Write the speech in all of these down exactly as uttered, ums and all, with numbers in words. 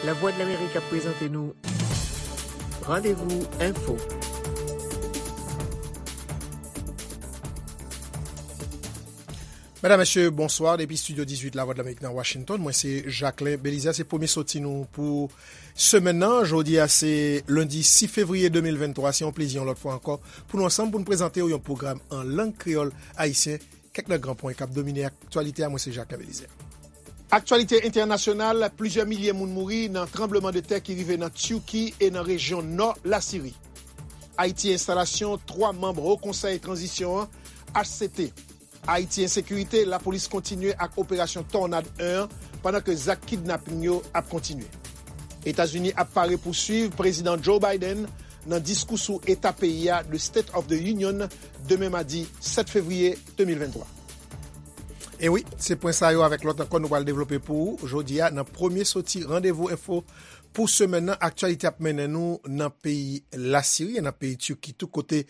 Lavwadlamerik ap prezante nou Randevou Enfo. Medam, mesye, bonswa. Depi estidyo dizuit Lavwadlamerik nan Washington, mwen se Jacquelin Belizaire. Se premye soti nou pou semèn nan. Jodi a se lendi sis fevriye de mil venntwa. Se yon plezi yon lòt fwa ankò pou nou ansanm pou n prezante w yon pwogram an lang kreyòl ayisyen. Kèk nan gran pwen k ap domine aktyalite a, mwen se Jacquelin Belizaire. Aktyalite entènasyonal, plizyè milye moun mouri nan tranblemanntè ki rive nan Tiki e nan rejyon nò Lasiri. Ayiti, enstalasyon twa manm Wo Konsèy Tranzisyon an, H C T. Ayiti, ensekirite, lapolis kontinye ak operasyon Tònad en an, pandan ke zak kidnaping yo ap kontinye. Etazini ap pare pou swiv Prezidan Joe Biden nan diskou sou eta peyi a, The State of the Union, demen madi sèt fevriye de mil venntwa. E wi, se pwen sa yo avèk lòt ankò nou pral devlope pou ou jodi a nan premye soti Randevou Enfo pou semèn nan. Aktyalite ap mennen nou nan peyi Lasiri e nan peyi Tiki tou, kote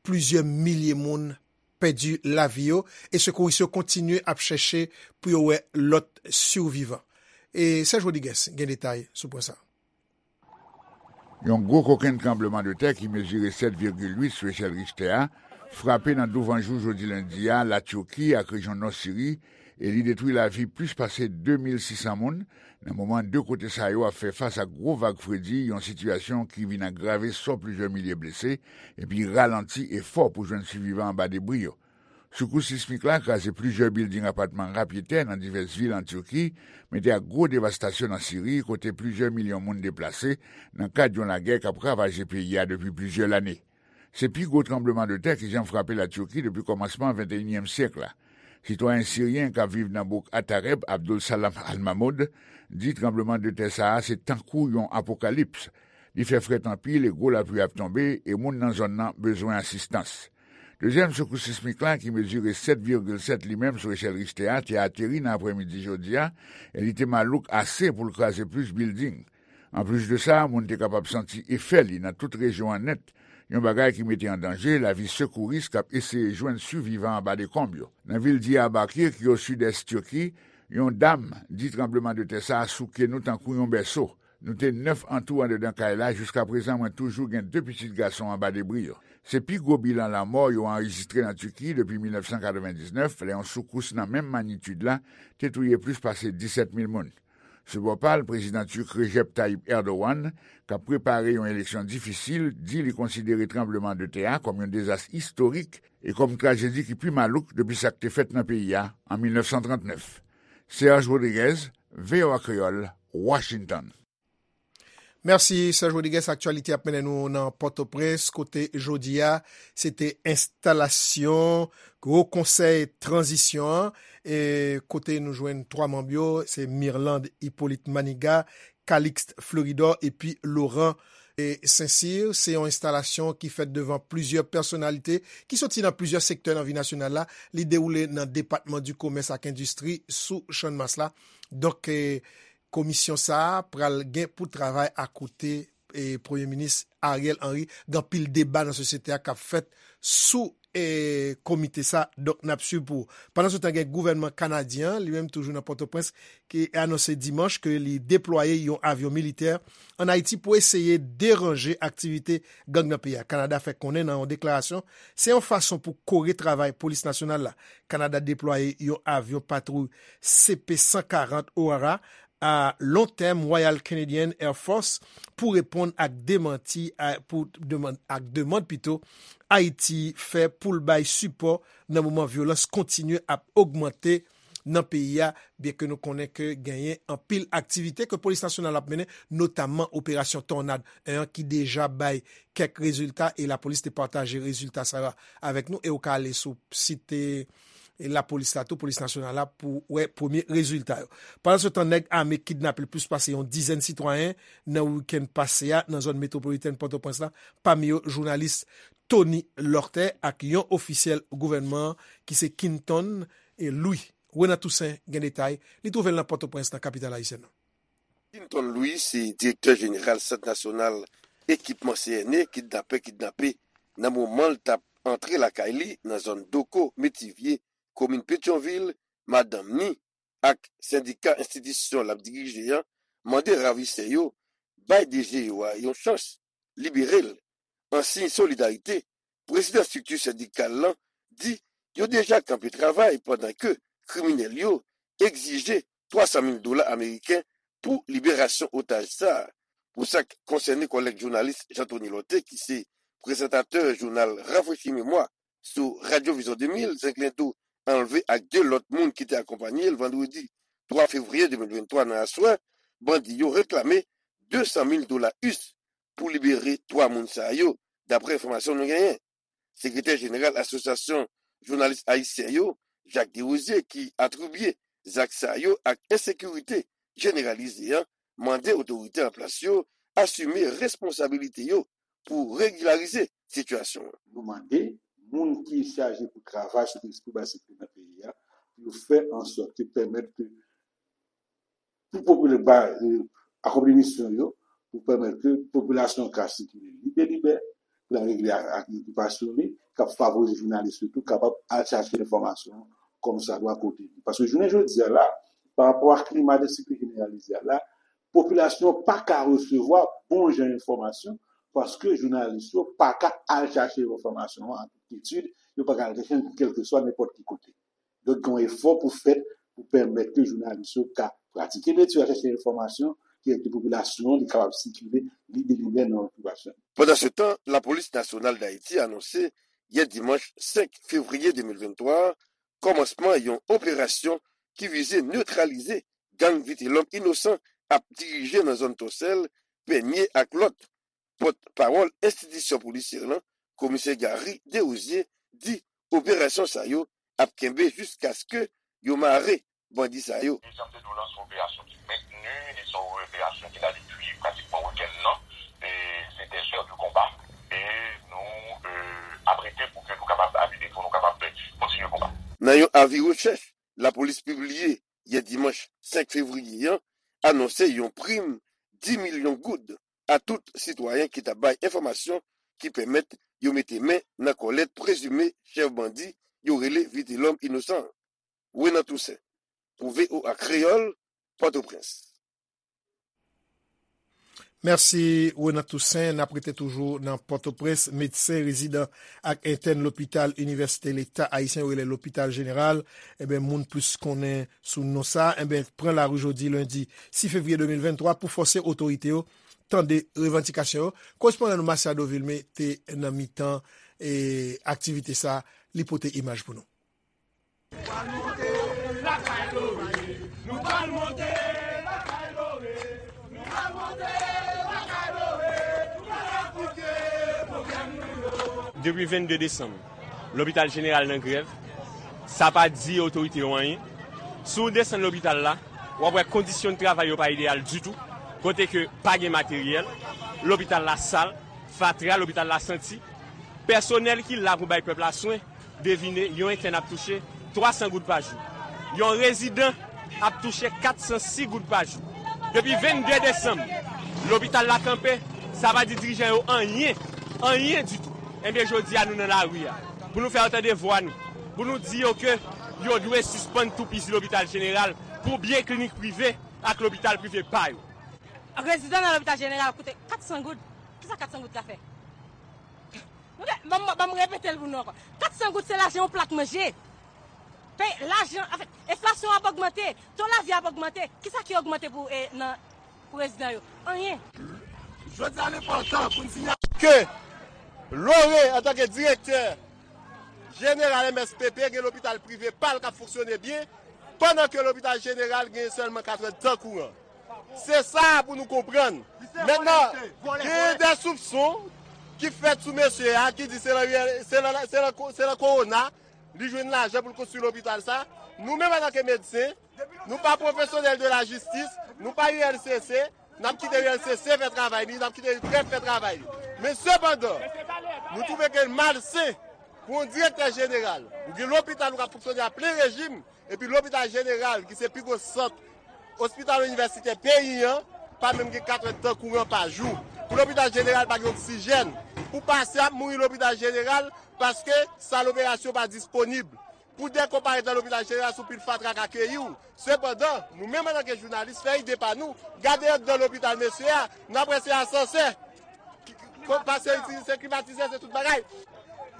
plizyè milye moun pèdi lavi yo e sekouris yo kontinye ap chèche pou yo wè lòt sivivan. E Serge Rodriguez gen detay sou pwen sa. Yon gwo kokenn tranblemanntè ki mezire sèt vigil uit sou echèl Richter a frape nan douvanjou jodi lendi a Latiki ak rejyon nò Siri, e li detwi lavi plis pase de mil sis san moun, nan moman de kote sa yo ap fè fas ak gwo vag fredi, yon sitiyasyon ki vin agrave sò plizyè milye blese epi ralanti efò pou jwenn sivivan anba debri yo. Sekous sismik la kraze plizyè bilding apatman rapyetè nan divès vil an Tiki, mete ak gwo devastasyon nan Siri, kote plizyè milyon moun deplase nan kad yon lagè k ap ravaje peyi a depi plizyè lane. Se pi gwo tranblemanntè ki janm frape Latiki depi kòmansman venteyinyèm syèk la. Sitwayen siryen k ap viv nan bouk Atareb, Abdul Salam Al Mahmoud, di tranblemanntè sa a se tankou yon apokalips. Li fè frèt anpil e gwo lapli ap tonbe, e moun nan zòn nan bezwen asistans. Dezyèm sekous sismik la, ki mezire sèt vigil sèt li menm sou echèl Richter a, te ateri nan aprèmidi jodi a, e li te malouk ase pou l kraze plis bilding. Anplis de sa, moun te kapab santi efè li nan tout rejyon an nèt, yon bagay ki mete an danje lavi sekouris k ap eseye jwenn sivivan anba dekonb yo. Nan vil Diyarbakir, ki o sidès Tiki, yon dam di tranblemanntè sa a souke nou tankou yon bèso. Nou te nèf antou anndan kay la, jiskaprezan mwen toujou gen de pitit gason anba debri yo. Se pi gwo bilan lanmò yo anrejistre nan Tiki depi mil nèf san katrevendiznèf, lè yon sekous nan menm manyitid la te touye plis pase disèt mil moun. Sou bò pa l, prezidan tik Recep Tayyip Erdogan, k ap prepare yon eleksyon difisil, di li konsidere tranblemanntè a kòm yon dezas istorik e kòm trajedi ki pi malouk depi sa k te fèt nan peyi a an mil nèf san trannèf. Serge Rodriguez, V O A Kreyòl, Washington. Mèsi, Serge Rodriguez. Aktyalite ap mennen nou nan Pòtoprens, kote jodi a, se te enstalasyon Wo Konsèy Tranzisyon an, e kote nou jwenn twa manm yo, se Mirlande Hyppolite Manigat, Calixte Fleuridor epi Laurent, e, Saint-Cyr. Se yon enstalasyon ki fèt devan plizyè pèsonalite ki soti nan plizyè sektè nan vi nasyonal la. Li dewoule nan depatman di komès ak endistri sou Channmas la. Donk, e, komisyon sa a pral gen pou travay akote, e, Premye Minis Ariel Henry. Gen anpil deba nan sosyete a k ap fèt sou, e, komite sa. Donk, n ap swiv pou ou. Pandan se tan, gen gouvènman kanadyen an, li menm toujou nan Pòtoprens, ki anonse dimanch ke li deplwaye yon avyon militè ann Ayiti pou eseye deranje aktivite gang nan peyi a. Kanada fè konnen nan yon deklarasyon, se yon fason pou kore travay polis nasyonal la. Kanada deplwaye yon avyon patwouy C P san karant Aurora a long tèm Royal Canadian Air Force pou reponn ak demanti a, pou demann, ak demann pito Ayiti fè pou l bay sipò nan moman vyolans kontinye ap ogmante nan peyi a, byenke nou konnen ke genyen anpil aktivite ke polis nasyonal ap mennen, notamman operasyon Tònad en an ki deja bay kèk rezilta, e lapolis te pataje rezilta sa yo avèk nou, e ou ka ale sou sit, e, lapolis la tou, polis nasyonal la, pou wè premye rezilta yo. Pandan se tan, nèg ame kidnape plis pase yon dizèn sitwayen nan wikenn pase a nan zòn metwopolitèn Pòtoprens la, pami yo jounalis Tony Lortè ak yon ofisyèl gouvènman an ki se Quinton, e, Louis. Renan Toussaint gen detay, li twouve l nan Pòtoprens, nan kapital ayisyèn nan. Quinton Louis se direktè jeneral Sant Nasyonal Ekipman C N E, kidnapè kidnape nan moman l t ap antre lakay li nan zòn Doko, Metivye, komin Petyonvil, madanm ni ak sendika enstitisyon l ap dirije an, mande ravisè yo bay D G yo a yon chans, libere l. An siy solidarite, prezidan estrikti sendikal lan di yo deja kanpe travay pandan ke kriminèl yo egzije twa san mil dola ameriken pou liberasyon otaj sa a. Pou sa k konsène kòlèg jounalis Jean Thony Lorthé, ki se prezantatè jounal Rafrechi Memwa sou Radyo Vizyon de mil, Zenglendo anlve ak de lòt moun ki te akonpanye l vandredi twa fevriye de mil venntwa nan aswè, bandi yo reklame de san mil dola U S pou libere twa moun sa yo, daprè enfòmasyon nou genyen. Sekretè jeneral Asosyasyon Jounalis Ayisyen yo, Jacques Desrosiers, ki atribye zak sa yo ak ensekirite jeneralize an, mande otorite an plas yo asime responsabilite yo pou regilarize sitiyasyon an. Nou mande moun ki chaje pou travay sou teren, pou bay sekirite nan peyi a, pou yo fè an sòt ke pèmèt ke pou popilè ba, e, akonpli misyon yo, pou pèmèt ke popilasyon ka sikile libelibè, pou l al regle ak, ak okipasyon li, k ap favorize jounalis yo tou kapab al chache enfòmasyon kòmsadwa kote li. Paske jounen jodi a la, pa rapò ak klima de sekirite jeneralize a la, popilasyon pa ka resevwa bon jan enfòmasyon, paske jounalis yo pa ka al chache enfòmasyon an an tout kyetid, yo pa ka al chache l kèlkeswa nenpòt ki kote. Donk, gen yon efò pou fèt pou pèmèt ke jounalis yo ka pratike metye a, chèche enfòmasyon ki ede popilasyon an, li kapab sikile libelibè nan okipasyon. Pandansetan, Lapolis Nasyonal d Ayiti anonse yè dimanch senk fevriye de mil venntwa a kòmansman yon operasyon ki vize netralize gang Vitelòm Inosan ap dirije nan zòn Tòsèl, Pènye ak lòt. Pòtpawòl enstitisyon polisyè lan, Komisè Gary Desrosiers, di operasyon sa yo ap kenbe jiskaske yo mare bandi sa yo. Dezyèm de nou lanse yon operasyon ki mentni, li se yon operasyon ki la depi pratikman wikenn nan, e se dèzè de konba, e nou, e, ap rete pou ke nou kapab abize, pou nou kapab kontinye konba. Nan yon avi rechèch, lapolis pibliye yè dimanch senk fevriye an anonse yon prim dis milyon goud a tout sitwayen ki ta bay enfòmasyon ki pèmèt yo mete men nan kòlèt prezime chèf bandi yo rele Vitelòm Inosan an. Renan Toussaint, pou V O A Kreyòl, Pòtoprens. Mèsi, Renan Toussaint. N ap rete toujou nan Pòtoprens. Medsen rezidan ak entèn lopital Inivèsite Leta Ayisyen yo rele Lopital Jeneral, enben, moun plis konnen sou non sa, enben, pran lari jodi lendi sis fevriye de mil venntwa pou fòse otorite yo tande revandikasyon yo. Korespondan nou Masiado Vilmé te nan mitan, e, aktivite sa, li pote imaj pou nou. Depi vennde desanm, lopital jeneral nan grèv. Sa pa di otorite yo anyen. Si w desann lopital la, w ap wè kondisyon de travay yo pa ideyal ditou, kote ke pa gen materyèl, lopital la sal, fatra, lopital la santi. Pèsonèl ki la pou bay pèp la swen, devine, yon entèn ap touche twa san goud pa jou. Yon rezidan ap touche kat san sis goud pa jou. Depi vennde desanm, lopital la kanpe, sa pa di dirijan yo anyen, anyen ditou. Enben, jodi a, nou nan lari a. Pou nou fè yo tande vwa nou. Pou nou di yo ke yo dwe sispann toupizi lopital jeneral pou byen klinik prive ak lopital prive pa yo. Rezidan nan lopital jeneral koute kat san goud. Kisa kat san goud ka fè? Ok, ban m, ban m repete l pou nou ankò. Kat san goud se lajan yon plat manje. Pe, lajan, anfèt, enflasyon ap ogmante, to lavi ap ogmante. Kisa ki ogmante pou, e, nan, pou rezidan yo? Anyen. Jodi a, l enpòtan pou n sinyale ke Lore, antanke direktè jeneral M S P P, gen lopital prive pa l k ap fonksyone byen, pandan ke lopital jeneral gen sèlman kat èdtan kouran. Se sa pou nou konprann. Mentnan, gen de soupson ki fèt sou mesye a, ki di se nan, se nan, se nan, se nan kowona li jwenn lajan pou l konstwi lopital sa. Nou menm, antanke medsen, nou pa pwofesyonèl de la jistis, nou pa U L C C, n ap kite U L C C fè travay li, n ap kite trèf fè travay li. Men sepandan, nou twouve ke l malsen pou yon direktè jeneral, ou gen lopital ou k ap fonksyone a plen rejim, epi lopital jeneral, ki se pi gwo sant ospital inivèsitè peyi an, pa menm gen kat èdtan kouran pa jou. Pou lopital jeneral pa gen oksijèn. Pou pasyan ap mouri lopital jeneral paske sal operasyon pa disponib. Pou dèk ou parèt nan lopital jeneral, se yon pil fatra k akeyi w. Sepandan, nou menm antanke jounalis, fè ide pa nou, gade anndan lopital mesye a, n ap wè se asansè, ki- ki- pase itilize klimatizè, se tout bagay.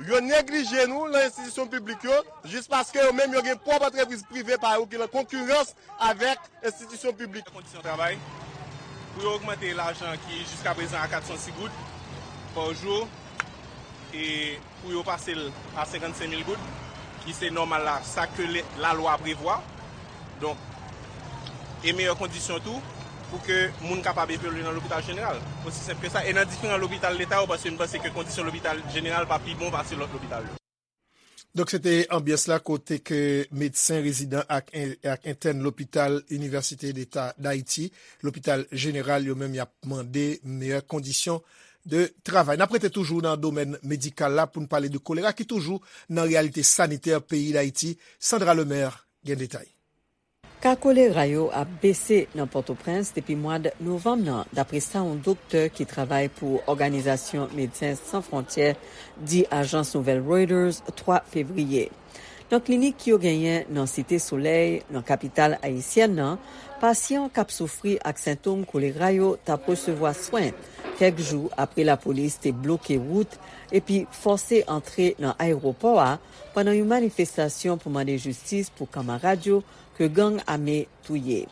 Yo neglije nou nan enstitisyon piblik yo, jis paske yo menm yo gen pwòp antrepriz prive pa yo ki nan konkirans avèk enstitisyon piblik. Kondisyon travay, pou yo ogmante lajan ki jiska prezan a kat san sis goud pa jou, e pou yo pase l a senkannsenk mil goud, ki se nòmal la, sa ke le- lalwa prevwa. Donk, e meyè kondisyon tou, pou ke moun kapab evolye nan lopital jeneral. Osi senp ke sa. E nan diferan lopital leta yo, paske m panse ke kondisyon lopital jeneral pa pi bon pase lòt lopital yo. Donk, se te anbyans la kote ke medsen rezidan ak, ak entèn lopital Inivèsite Deta Dayiti, lopital jeneral, yo menm y ap mande meyè kondisyon de travay. N ap rete toujou nan domèn medikal la pou n pale de kolera ki toujou nan reyalite sanitè peyi Dayiti. Sandra Lemaire gen detay. Ka kolera yo ap bese nan Pòtoprens depi mwad novanm nan, dapre sa yon doktè ki travay pou Òganizasyon Medsen San Fwontyè di ajans nouvèl Reuters twa fevriye. Nan klinik yo genyen nan Site Solèy, nan kapital ayisyèn nan, pasyan k ap soufri ak sentòm kolera yo t ap resevwa swen kèk jou apre lapolis te bloke wout epi fòse antre nan ayewopò a pandan yon manifestasyon pou mande jistis pou kanmarad yo ke gang ame touye.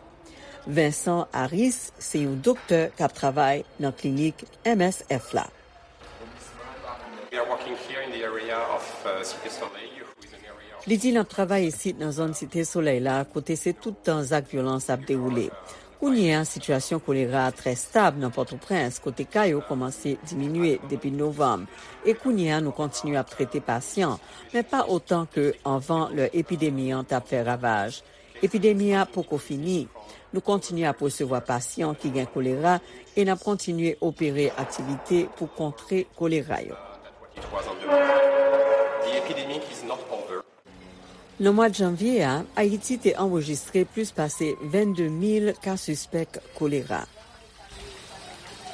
Vincent Harris se yon doktè k ap travay nan klinik M S F la. We are working here in the area of uh, Cité Soleil, who is an area of Li di n ap travay isit nan zòn Site Solèy la, kote se tout tan zak vyolans ap dewoule. Kounye a, sitiyasyon kolera a trè stab nan Pòtoprens, kote ka yo kòmanse diminye depi novanm. E kounye a, nou kontinye ap trete pasyan, men pa otan ke anvan lè epidemi an t ap fè ravaj. Epidemi a poko fini. Nou kontinye ap resevwa pasyan ki gen kolera e n ap kontinye opere aktivite pou kontre kolera yo. It was on the move. The epidemic is not over. Nan mwa janvye a, Ayiti te anrejistre plis pase vennde mil ka sispèk kolera.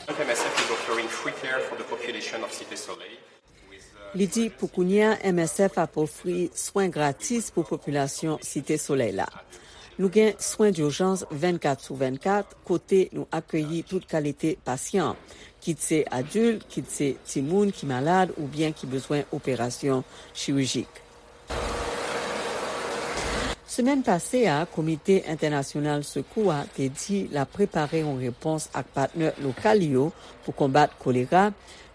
M S F is offering free care for the population of Cité Soleil. Li di pou kounye a, M S F ap ofri swen gratis pou popilasyon Site Solèy la. Nou gen swen dijans vennkat sou vennkat, kote nou akeyi tout kalite pasyan, kit se adilt, kit se timoun ki malad oubyen ki bezwen operasyon chirijik. Semèn pase a, Komite Entènasyonal Sekou a te di l ap prepare yon repons ak patnè lokal yo pou konbat kolera,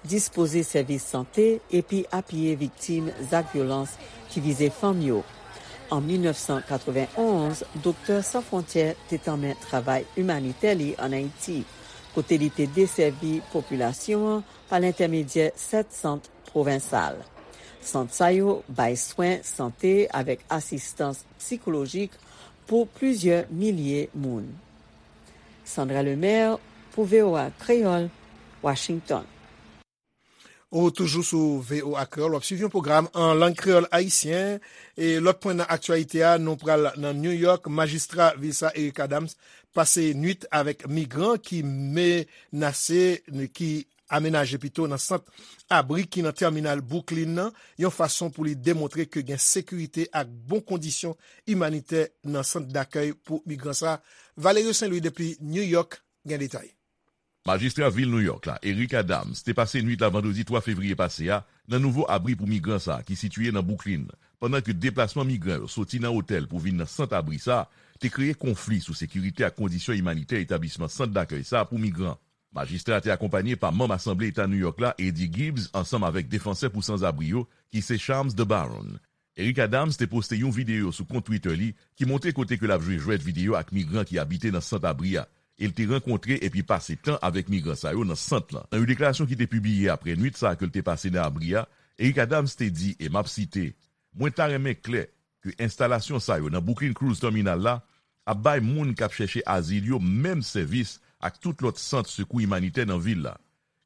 dispoze sèvis sante epi apiye viktim zak vyolans ki vize fanm yo. An mil nèf san katrevenn onz, Doktè San Fwontyè te tanmen travay imanitè li ann Ayiti, kote li te desèvi popilasyon an pa lentèmedyè sèt sant pwovensal. Sant sa yo bay swen sante avèk asistans sikolojik pou plizyè milye moun. Sandra Lemaire pou V O A Kreyòl, Washington. Ou toujou sou V O A Kreyòl, w ap swiv yon pwogram an lang kreyòl ayisyen. E lòt pwen nan aktyalite a, nou pral nan New York. Majistra vil sa, Eric Adams, pase nwit avèk migran ki menase, ki amenaje pito nan sant abri ki nan tèminal Brooklyn nan, yon fason pou li demontre ke gen sekirite ak bon kondisyon imanitè nan sant dakèy pou migran sa. Valerio Saint Louis depi New York gen detay. Majistra vil New York la, Eric Adams, te pase nwit la vandredi twa fevriye pase a nan nouvo abri pou migran sa a ki sitiye nan Brooklyn, pandan ke deplasman migran yo soti nan otèl pou vin nan sant abri sa a te kreye konfli sou sekirite ak kondisyon imanitè etablisman sant dakèy sa a pou migran. Majistra a te akonpanye pa manm Asanble Eta New York la, Eddie Gibbs, ansanm avèk defansè pou sanzabri yo, ki se Shams Debaron. Eric Adams te poste yon videyo sou kont Twitter li ki montre kote ke l ap jwe jwèt videyo ak migran ki abite nan sant abri a, e l te rankontre epi pase tan avèk migran sa yo nan sant lan. Nan yon deklarasyon ki te pibliye apre nwit sa a ke l te pase nan abri a, Eric Adams te di, e m ap site, "Mwen ta renmen klè ke enstalasyon sa yo nan Brooklyn Cruise Terminal la ap bay moun k ap chèche azil yo menm sèvis ak tout lòt sant sekou imanitè nan vil la."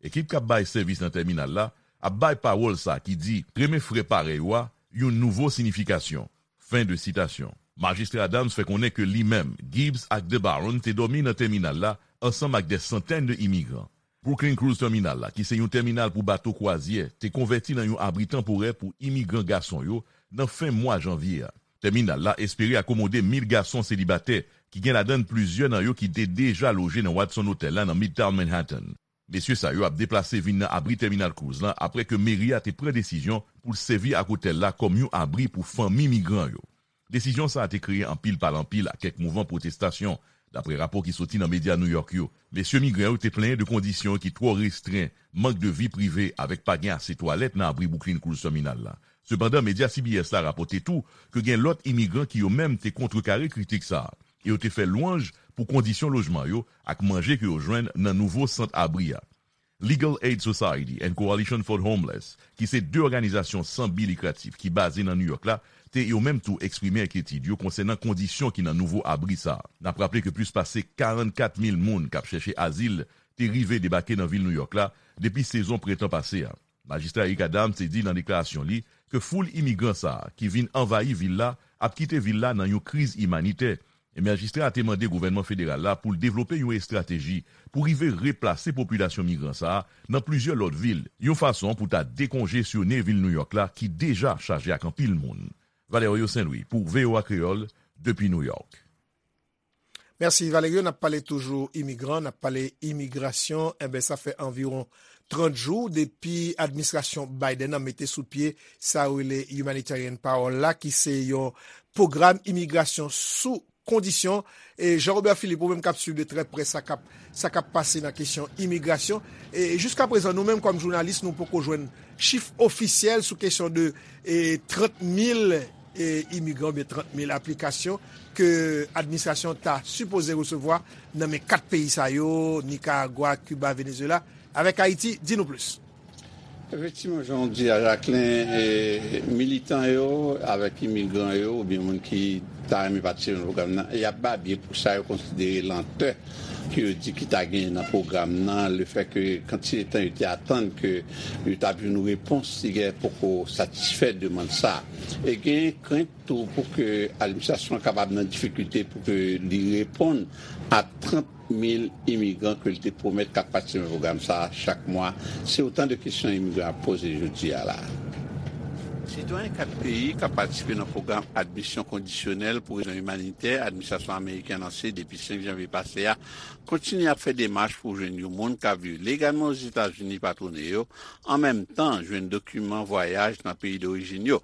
Ekip k ap bay sèvis nan tèminal la ap bay pawòl sa ki di, "Renmen frè parèy ou a," yon nouvo siyifikasyon. Fen de sitasyon. Majistra Adams fè konnen ke li menm, Gibbs ak Debaron te dòmi nan tèminal la ansanm ak dè santèn de imigran. Brooklyn Cruise Terminal la, ki se yon tèminal pou bato kwazyè, te konvèti nan yon abri tanporè pou imigran gason yo nan fen mwa janvye a. Tèminal la espere akomode mil gason selibatè, ki gen ladan l plizyè nan yo ki te deja loje nan Watson Hotel la nan Midtown Manhattan. Mesye sa yo ap deplase vin nan abri Tèminal Cruz lan apre ke meri a te pran desizyon pou l sèvi ak otèl la kòm yon abri pou fanmi migran yo. Desizyon sa a te kreye anpil pale anpil ak kèk mouvman pwotestasyon, dapre rapò ki soti nan medya New York yo. Mesye migran yo te plenyen de kondisyon ki twò restren, mank de vi prive avèk pa gen ase twalèt nan abri Brooklyn Cruz Tèminal la. Sepandan, medya C B S la rapòte tou ke gen lòt imigran ki yo menm te kontrekare kritik sa a, e yo te fè lwanj pou kondisyon lojman yo ak manje ke yo jwenn nan nouvo sant abri a. Legal Aid Society and Coalition for the Homeless, ki se de òganizasyon san bi likratif ki baze nan New York la, te yo menm tou eksprime enkyetid yo konsènan kondisyon ki nan nouvo abri sa a. N ap raple ke plis pase karannkat mil moun k ap chèche azil te rive debake nan vil New York la depi sezon prentan pase a. Majistra Eric Adams te di nan deklarasyon li ke foul imigran sa a ki vin anvayi vil la ap kite vil la nan yon kriz imanitè, e majistra a te mande gouvènman federal la pou l devlope yon estrateji pou rive replase popilasyon migran sa a nan plizyè lòt vil, yon fason pou ta dekonjesyone vil New York la ki deja chaje ak anpil moun. Valerio Saint Louis pou V O A Kreyòl, depi New York. Mèsi Valerio, n ap pale toujou imigran, n ap pale imigrasyon, enben sa fè anviwon trant jou depi administrasyon Biden an mete sou pye sa yo rele Humanitarian Parole la, ki se yon pwogram imigrasyon sou kondisyon. E Jean Robert Philippe, ou menm k ap swiv de trè prè sa k ap sa k ap pase nan kesyon imigrasyon. E jiska prezan, nou menm kòm jounalis, nou poko jwenn chif ofisyèl sou kesyon de e, trant mil e, imigran oubyen trant mil aplikasyon ke administrasyon ta sipoze resevwa nan men kat peyi sa yo, Nikaragwa, Kiba, Venezuela, avèk Ayiti. Di nou plis. Efektivman, jan w di a, Jacquelin, e, militan yo avèk imigran yo oubyen moun ki ta renmen patisipe nan pwogram nan, y ap babye pou sa yo konsidere lantè ke yo di ki ta genyen nan pwogram nan, lefètke kantite tan yo te atann ke yo t ap jwenn yon repons, ti gen poko satisfè demann sa a. E gen krent tou pou ke administrasyon an kapab nan difikilte pou ke li reponn a trant mil imigran ke l te pwomèt k ap patisipe nan pwogram sa a chak mwa. Se otan de kesyon imigran ap poze jodi a la a. Sitwayen kat peyi k ap patisipe nan pwogram admisyon kondisyonèl pou rezon imanitè administrasyon ameriken an lanse depi senk janvye pase a kontinye ap fè demach pou jwenn yon moun k ap viv legalman Ozetazini patwone yo, an menm tan jwenn dokiman vwayaj nan peyi dorijin yo.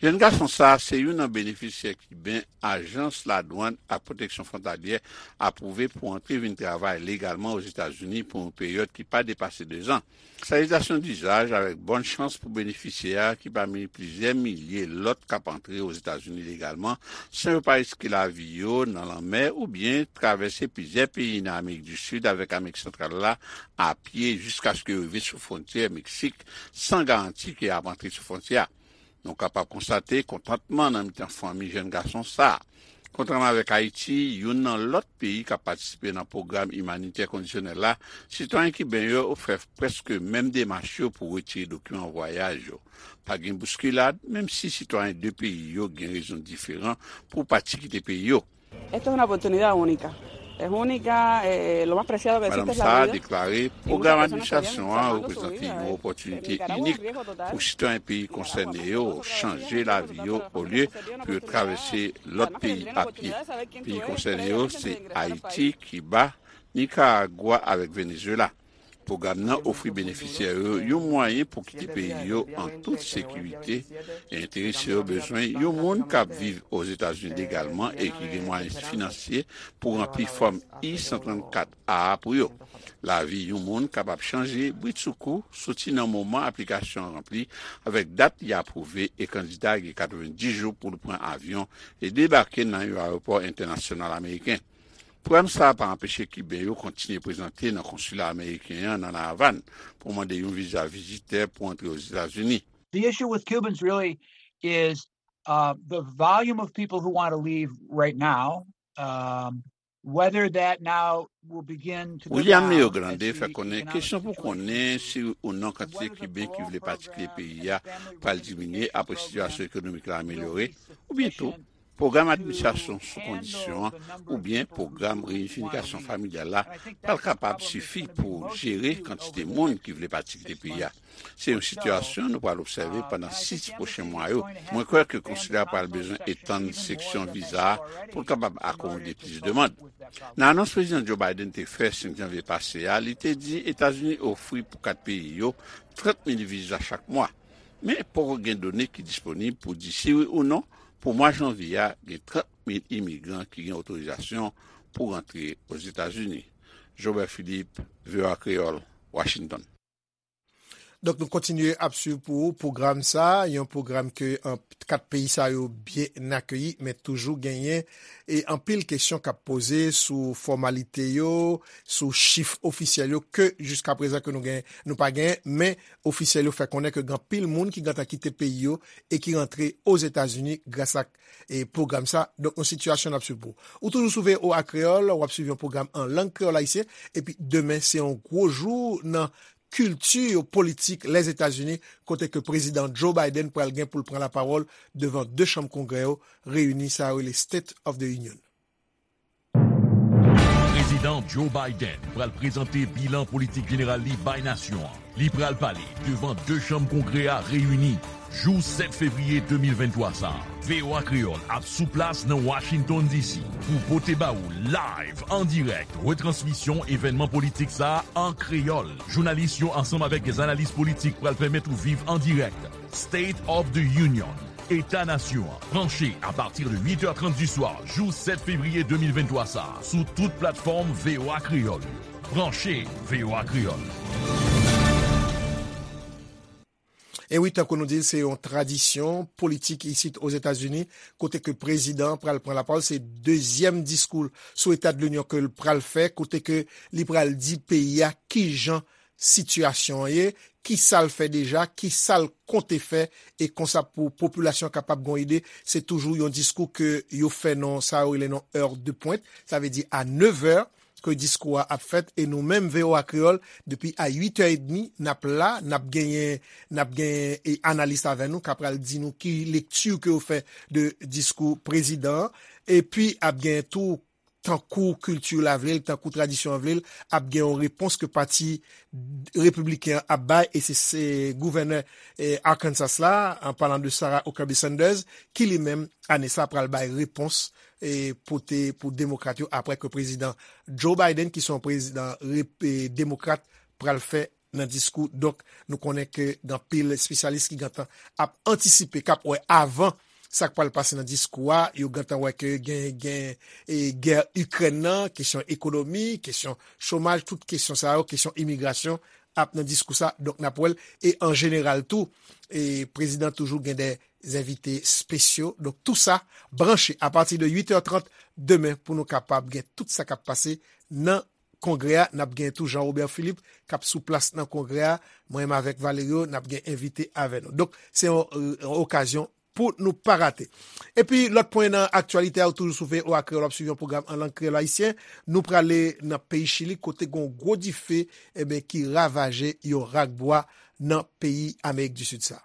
Jèn gason sa a se youn nan benefisyè kiben ajans ladwann ak pwoteksyon fwontalyè apwouve pou antre vin travay legalman Ozetazini pou yon peryòd ki pa depase dezan. Salitasyon dizaj avèk bòn chans pou benefisyè a ki pami plizyè milye lòt k ap antre Ozetazini legalman san yo pa riske lavi yo nan lanmè oubyen travèse plizyè peyi nan Amerik di Sid avèk Amerik Santral la a pye jiskaske yo rive sou fwontyè Meksik san garanti ke y ap antre sou fwontyè a. Nou kapab konstate kontantman nan mitan fanmi jèn gason sa a. Kontrèman avèk Ayiti, youn nan lòt peyi k ap patisipe nan pwogram imanitè kondisyonèl la, sitwayen kiben yo fè prèske menm demach yo pou retire dokiman vwayaj yo. Pa gen bouskilad, menm si sitwayen de peyi yo gen rezon diferan pou pati kite peyi yo. Esto es una oportunidad única. Es única, eh, lo más preciado que existe es la vida. Madanm sa a deklare, pwogram administrasyon an reprezante yon opòtinite inik pou sitwayen peyi konsène yo chanje lavi yo olye pou yo travèse lòt peyi a pye. Peyi konsène yo se Ayiti, Kiba, Nikaragwa avèk Venezuela. Pwogram nan ofri benefisyè yo yon mwayen pou kite peyi yo an tout sekirite, e enterese yo bezwen yon moun k ap viv Ozetazini legalman e ki gen mwayen finansye pou ranpli fòm I san trannkat A a pou yo. Lavi yon moun kapab chanje britsoukou soti nan moman aplikasyon an ranpli avèk dat li apwouve e kandida gen katrevenndis jou pou l pran avyon e debake nan yon ayewopò entènasyonal ameriken. Pwogram sa a pa anpeche Kiben yo kontinye prezante nan konsila ameriken an nan La Avàn pou mande yon viza vizitè pou antre Ozetazini. The issue with Cubans really is uh, the volume of people who want to leave right now, um, whether that now will begin to go down. William Leogrande fè konnen kesyon pou konnen si ou non kantite Kiben ki vle pati kite peyi a pral diminye apre sitiyasyon ekonomik la amelyore, oubyen tou Pwogram administrasyon sou kondisyon an oubyen pwogram reyinifikasyon familyal la pral kapab sifi pou jere kantite moun ki vle pati kite peyi a. Se yon sitiyasyon nou pral obsève pandan sis pwochen mwa yo. Mwen kwè ke konsila pral bezwen etann seksyon viza a pou l kapab akomode plis demann. Nan anons Prezidan Joe Biden te fè senk janvye pase a, li te di Etazini ofri pou kat peyi yo trant mil viza chak mwa. Men poko gen done ki disponib pou di si wi ou non pou mwa janvye a gen trant mil imigran ki gen otorizasyon pou rantre Ozetazini. Jobert Philippe, V O A Kreyòl, Washington. Donk, nou kontinye ap swiv pou ou pwogram sa, yon pwogram ke an, kat peyi sa yo byen akeyi, men toujou genyen e anpil kesyon k ap poze sou fòmalite yo, sou chif ofisyèl yo, ke jiska prezan ke nou gen, nou pa gen, men ofisyèl yo fè konnen ke gen anpil moun ki gentan kite peyi yo e ki rantre Ozetazini gras ak e pwogram sa. Donk, yon sitiyasyon n ap swiv pou ou. Ou toujou sou V O A Kreyòl, w ap swiv yon pwogram an lang kreyòl ayisyen, epi demen se yon gwo jou nan kilti politik Lèzetazini, kote ke Prezidan Joe Biden pral gen pou l pran lapawòl devan de chanm Kongrè yo reyini, sa yo rele State of the Union. Prezidan Joe Biden pral prezante bilan politik jeneral li bay nasyon an. Li pral pale devan de chanm Kongrè a reyini jou sèt fevriye de mil venntwa sa a. V O A Kreyòl ap sou plas nan Washington D C pou pote ba ou live, an dirèk, retransmisyon evènman politik sa a an kreyòl. Jounalis yo ansanm avèk dè analis politik pral pèmèt ou viv an dirèk State of the Union, Eta Nasyon an, branche apati de uit è trant di swa jou sèt fevriye de mil venntwa sa a sou tout platfòm V O A Kreyòl yo. Branche V O A Kreyòl. E wi, tankou nou di l, se yon tradisyon politik isit Ozetazini, kote ke prezidan an pral pran lapawòl. Se dezyèm diskou l sou Eta de Linyon ke l pral fè, kote ke li pral di peyi a kijan sitiyasyon an ye, ki sa l fè deja, ki sa l konte fè, e konsa pou popilasyon an kapab gen yon ide. Se toujou yon diskou ke yo fè nan sa yo rele nan heure de pointe, sa vle di a nevè ke diskou a ap fèt, e nou menm V O A Kreyòl, depi a uit è edmi, n ap la, n ap genyen, n ap genyen e analis avè nou k ap pral di nou ki lekti ke yo fè de diskou prezidan an, epi ap genyen tou, tankou kilti la vle l, tankou tradisyon an vle l, ap gen yon repons ke pati repibliken an ap bay, e se, se gouvènè e, Arkansas la, an palan de Sarah Huckabee Sanders, ki li menm, ane sa, pral bay repons e, pote pou demokrat yo, apre ke prezidan Joe Biden, ki se yon prezidan rep, e, demokrat, pral fè nan diskou. Donk, nou konnen ke gen anpil espesyalis ki gentan ap antisipe, k ap wè avan sa k pral pase nan diskou a, yo gentan wè ke gen, gen e, gè Ikrèn nan, kesyon ekonomi, kesyon chomaj, tout kesyon sa yo, kesyon imigrasyon ap nan diskou sa. Donk, n ap wè l. E an jeneral tou, e prezidan toujou gen dè envite espesyo. Donk, tou sa branche apati de uit è trant demen pou nou kapab gen tout sa k ap pase nan Kongrè a. N ap gen tou Jean Robert Philippe k ap sou plas nan Kongrè a. Mwen menm avèk Valerio, n ap gen envite avè nou. Donk, se yon, yon okazyon pou nou pa rate. Epi, lòt pwen nan aktyalite a, ou toujou sou V O A Kreyòl, w ap swiv yon pwogram an lang kreyòl ayisyen. Nou prale nan peyi Chili, kote gen yon gwo dife, enben, ki ravaje yon rak bwa nan peyi Amerik di Sid sa.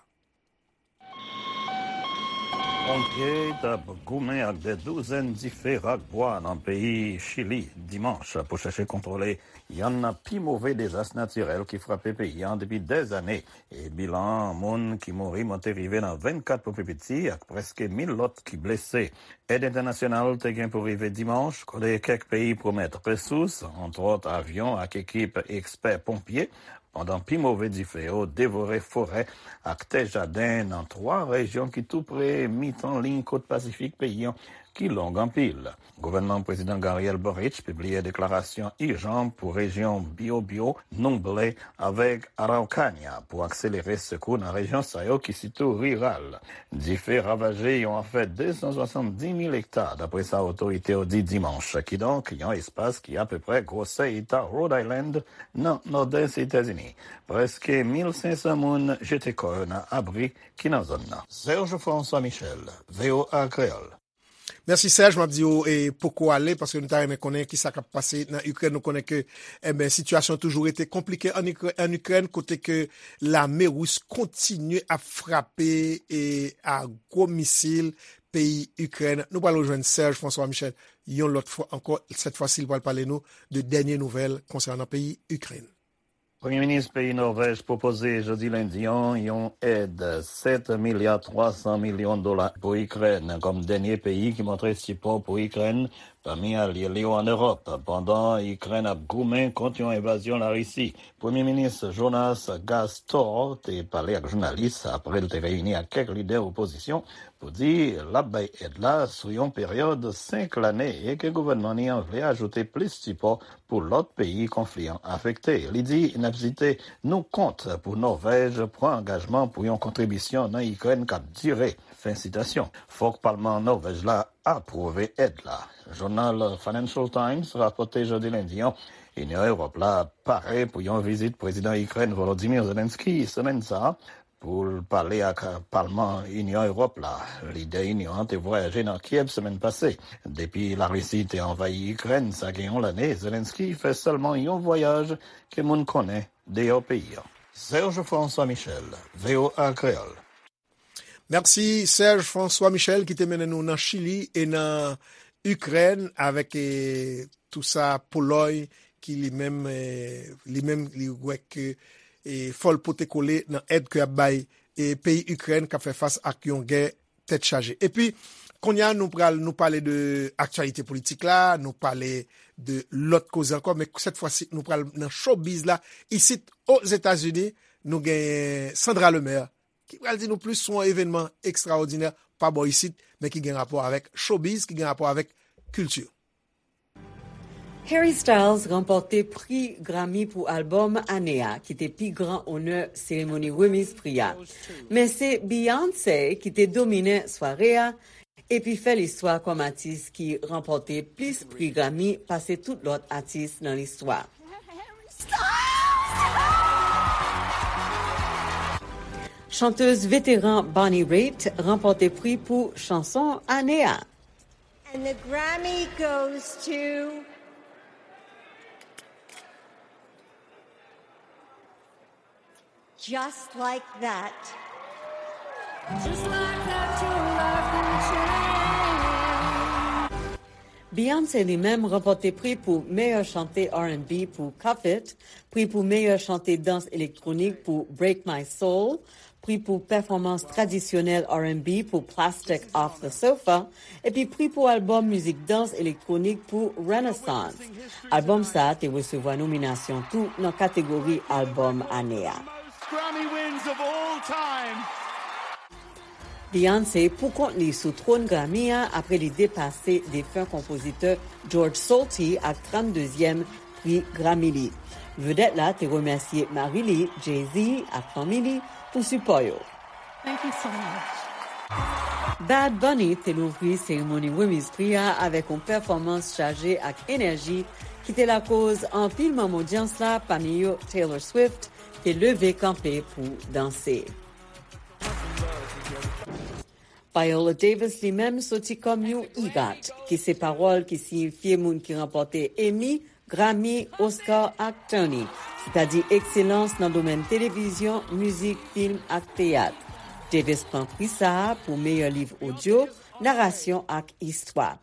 Ponpye t ap goumen ak dè douzèn dife rak bwa nan peyi Chili dimanch pou chèche kontwole yonn nan pi move dezas natirèl ki frape peyi an depi dèzane, e bilan moun ki mouri monte rive nan vennkat pou pi piti ak prèske mil lòt ki blese. Èd entènasyonal te gen pou rive dimanch, kote kèk peyi pwomèt resous, antwòt avyon ak ekip ekspè ponpye, pandan pi move dife yo devore forè ak tè jaden nan twa rejyon ki tou pre mitan liy kot Pasifik peyi an, ki long anpil. Gouvènman Prezidan Gabriel Boric pibliye deklarasyon ijan pou rejyon Biobío, Ñuble avèk Araucania pou akselere sekou nan rejyon sa yo ki sitou riral. Dife ravaje yon afè de san swasanndis mil ekta, dapre sa otorite yo di dimanch, kidonk yon espas ki apeprè gwosè eta Rhode Island nan nòdès Etazini. Prèske mil senk san moun jete kò yo nan abri ki nan zòn nan. Serge François Michel, V O A Kreyòl. Mèsi Serge, m ap di w e poko ale, paske nou ta renmen konnen kisa k ap pase nan Ikrèn. Nou konnen ke, enben, sitiyasyon toujou rete konplike an Ikrè-, an Ikrèn, kote ke lame ris kontinye ap frape e a gwo misil peyi Ikrèn. Nou pral rejwenn Serge François Michel yon lòt fwa ankò. Sèt fwa si, li pral pale nou de dènye nouvèl konsènan peyi Ikrèn. Premye minis peyi Nòvèj pwopoze jodi lendi an yon èd sèt milya twa san milyon dola pou Ikrèn kòm dènye peyi ki montre sipò pou Ikrèn pami alye li yo ann Ewòp, pandan Ikrèn ap goumen kont yon envazyon Larisi. Premye minis Jonas Gahr Store te pale ak jounalis apre l te reyini ak kèk lidè opozisyon pou di l ap bay èd la sou yon peryòd senk lane e ke gouvènman li an vle ajoute plis sipò pou lòt peyi konfli an afekte. Li di, n ap site, nou kont pou Nòvèj pran angajman pou yon kontribisyon nan Ikrèn k ap dire. Fen sitasyon. Fòk palman Nòvèj la apwouve èd la. Jounal Financial Times rapòte jodi lendi an, Inyon Ewòp la pare pou yon vizit prezidan Ikrèn Volodymyr Zelensky semèn sa a pou l pale ak palman Inyon Ewòp la. Lidè Inyon an te vwayaje nan Kyèv semèn pase. Depi Larisi te anvayi Ikrèn, sa gen yon lane, Zelensky fè sèlman yon vwayaj ke moun konnen deyò peyi an. Serge François Michel, V O A Kreyòl. Mèsi Serge François Michel ki te mennen nou nan Chili e nan Ikrèn avèk, e, tou sa Polòy ki li menm, e, li menm li wè ke, e, fò l pote kole nan èd ke y ap bay, e, peyi Ikrèn k ap fè fas ak yon gè tèt chaje. Epi, kounye a nou pral nou pale de aktyalite politik la, nou pale de lòt koze ankò, men sèt fwa si nou pral nan showbiz la. Isit Ozetazini, nou gen Sandra Lemaire ki pral di nou plis sou yon evènman ekstraòdinè pa bò isit, men ki gen rapò avèk showbiz, ki gen rapò avèk kilti. Harry Styles ranpòte pri Grammy pou albòm ane a, ki te pi gran onè seremoni remiz pri a. Men se Beyoncé ki te dominen sware a, epi fè listwa kòm atis ki ranpòte plis pri Grammy pase tout lòt atis nan listwa. Chantèz veteran Bonnie Raitt ranpòte pri pou chanson ane a. And the Grammy goes to Just Like That. Just like that, your life can change. Beyoncé li menm ranpòte pri pou meyè chante R and B pou Cuff It, pri pou meyè chante dans elektwonik pou Break My Soul, pri pou pèfòmans tradisyonèl R and B pou Plastic Off the Sofa, epi pri pou albòm mizik dans elektwonik pou Renaissance. Albòm sa a te resevwa nominasyon tou nan kategori albòm ane a. Grammy wins of all time. Beyoncé pou kont li sou twòn Grammy a apre li depase defen konpozitè George Solti ak tranndezyèm pri Grammy li. Vedèt la te remèsye mari li, Jay-Z, ak fanmi li pou sipò yo. Thank you so much. Bad Bunny te louvri seremoni remiz pri a avèk yon pèfòmans chaje ak enèji ki te lakoz anpil manm odyans la, pami yo Taylor Swift, te leve kanpe pou danse. Viola Davis li menm soti kòm yon EGOT, ki se pawòl ki siyifye moun ki ranpòte Emmy, Grammy, Oscar ak Tony, sètadi ekselans nan domèn televizyon, mizik, fim ak teyat. Davis pran pri sa a pou meyè liv odyo, narasyon ak istwa.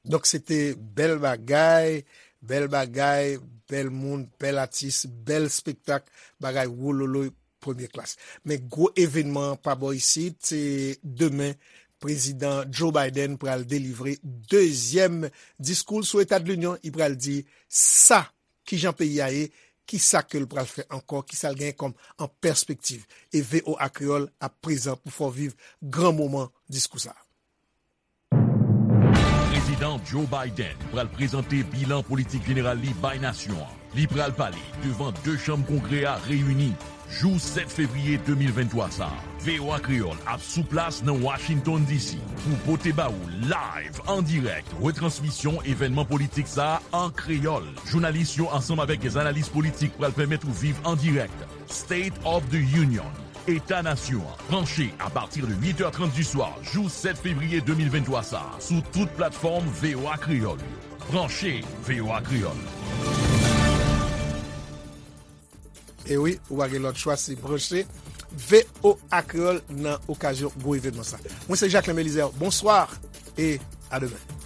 Donk, se te bèl bagay, bèl bagay, bèl moun, bèl atis, bèl espektak, bagay wololoy, premye klas. Men gwo evènman an pa bò isit, se demen, Prezidan Joe Biden pral delivre dezyèm diskou l sou Eta de Linyon. Li pral di sa, kijan peyi a ye, kisa ke l pral fè ankò, kisa l genyen kòm an pèspektiv. E V O A Kreyòl ap prezan pou fè w viv gran moman diskou sa a. Prezidan Joe Biden pral prezante bilan politik jeneral li bay nasyon an. Li pral pale devan de chanm Kongrè a reyini jou sèt fevriye de mil venntwa sa a. V O A Kreyòl ap sou plas nan Washington D C pou pote ba ou live, an dirèk, retransmisyon evènman politik sa a an kreyòl. Jounalis yo ansanm avèk dè analis politik pral pèmèt ou viv an dirèk State of the Union, Eta Nasyon an, branche apati de uit è trant di swa, jou sèt fevriye de mil venntwa sa a, sou tout platfòm V O A Kreyòl yo. Branche V O A Kreyòl. E wi, ou pa gen lòt chwa, se branche V O A Kreyòl nan okazyon gwo evènman sa. Mwen se Jacquelin Belizaire. Bonswa e a demen.